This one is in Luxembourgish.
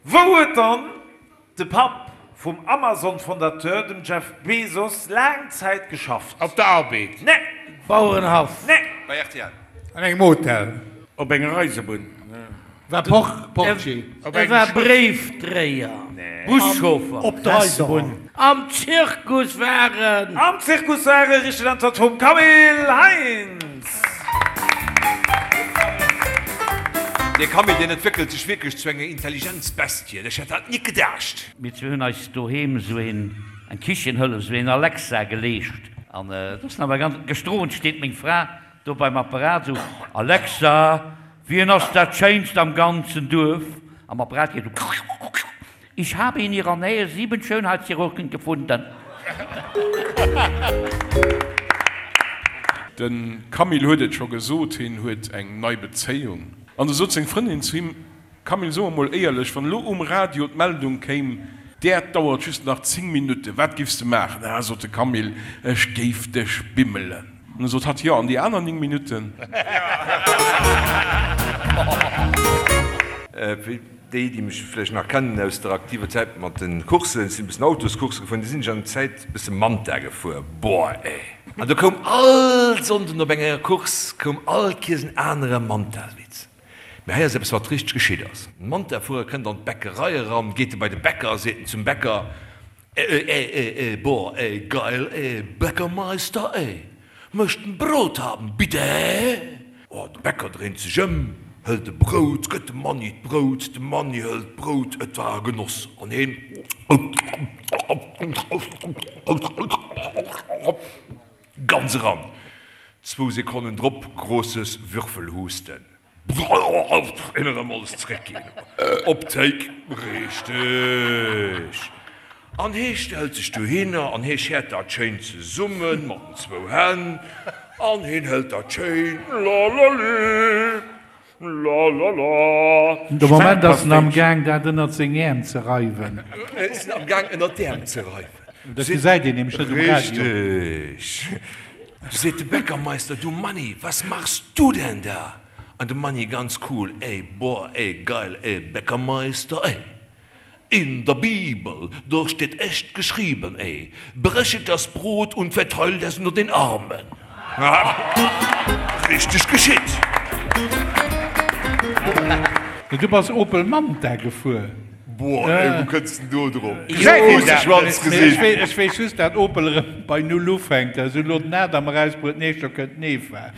Wou huet dann de Papp vum Amazon-Fondateur, dem Jeff Bezos, laang Zäit geschafft? Op der Arbed. Nee. Bauerenhaff. Nee. Bei rtl. An engem Hotel. Op enger Eisebunn. War Portier. E war Bréifdréier. Buschauffer. Op der Eisebunn. Am Zirkus war en. Am Zirkus war e, richteg Äntwert vum Camille Heintz. Dee Camille, deen entwéckelt sech wierklech zu enger Intelligenzbestie. Ech hätt dat nik gedacht. Mir zwee hunn eis doheem esou een, eng Kichenhëllef, esou een Alexa geleescht. An et ass nawell ganz, gëschter Owend steet meng Fra do beim Apparat esou, Alexa, wien ass dat Schéinst am ganzen Duerf? Am Apparat geet esou, Ich habe in ihrer Nähe sieben Schönheitschirurgen gefunden. De Camille huet et scho gesot, hien huet eng nei Bezéiung. An du sot seng Frëndin zu him, Camille, so emol éierlech, wann elo um Radio d'Meldung kéim, d'Äerd dauert just nach 10 Minutten, wat géifs de maachen? Ah, sot de Camille, ech géif dech bimmelen. An du sot hatt, Jo, an déi aner 9 Minutten? Fir déi, déi mech vläicht nach kennen aus der aktiver Zäit mat de Courssen, ech sinn e bëssen Autoscoursse gefuer, du sinn ech an der Zäit e bësse Manta gefuer, boah ey! An do koum all Sonnden op enger Course koum all Kiers en anere Manta-Witz. Mee hei ass eppes wat richteg geschitt ass. En Manta-Fuerer kënnt an d'Bäckerei eran, geet e bei de Bäcker a seet en zum Bäcker, Ey, ey, ey, ey, boah, ey, geil, ey, Bäckermeister, ey, möcht en Brot haben, bitte? Oh, de Bäcker dréint sech ëm, hëlt e Brout, gëtt dem Manni d'Brout, de Manni hëlt d'Brout, et war e Genoss, an heen ganz eran. Zwou Sekonnen drop, großes Würfelhusten. Een erëm alles zréckginn op d'Théik. Richteg. An hee stellt sech dohinner an hee schäert dat schéin zesumme mat den zwou Hänn an heen hëlt dat schéin, lalali, lalala. De Moment ass en am Gaang dat ënnert seng Äerm ze reiwen. Ass en am Gaang ënnert d'Äerm ze reiwen. Dat gesäit een nämlech net um Radio. Richteg. Du seet de Bäckermeister, Du Manni, was machst du denn da? An de Manni ganz cool, Ey, boah, ey, geil, ey, Bäckermeister, ey, in der Bibel, do steht echt geschrieben, ey, brechet das Brot und verteilt es unter den Armen. Richteg geschitt. Du bass Opel Manta gefuer? Boah ey, wou kënns den do drop? Gesäit een dat? Mee ech weess just dat Opel erëm bei Null ufänkt. Ech hunn elo den Adam erausbruet, d'nächst Joer kënnt d'Neva.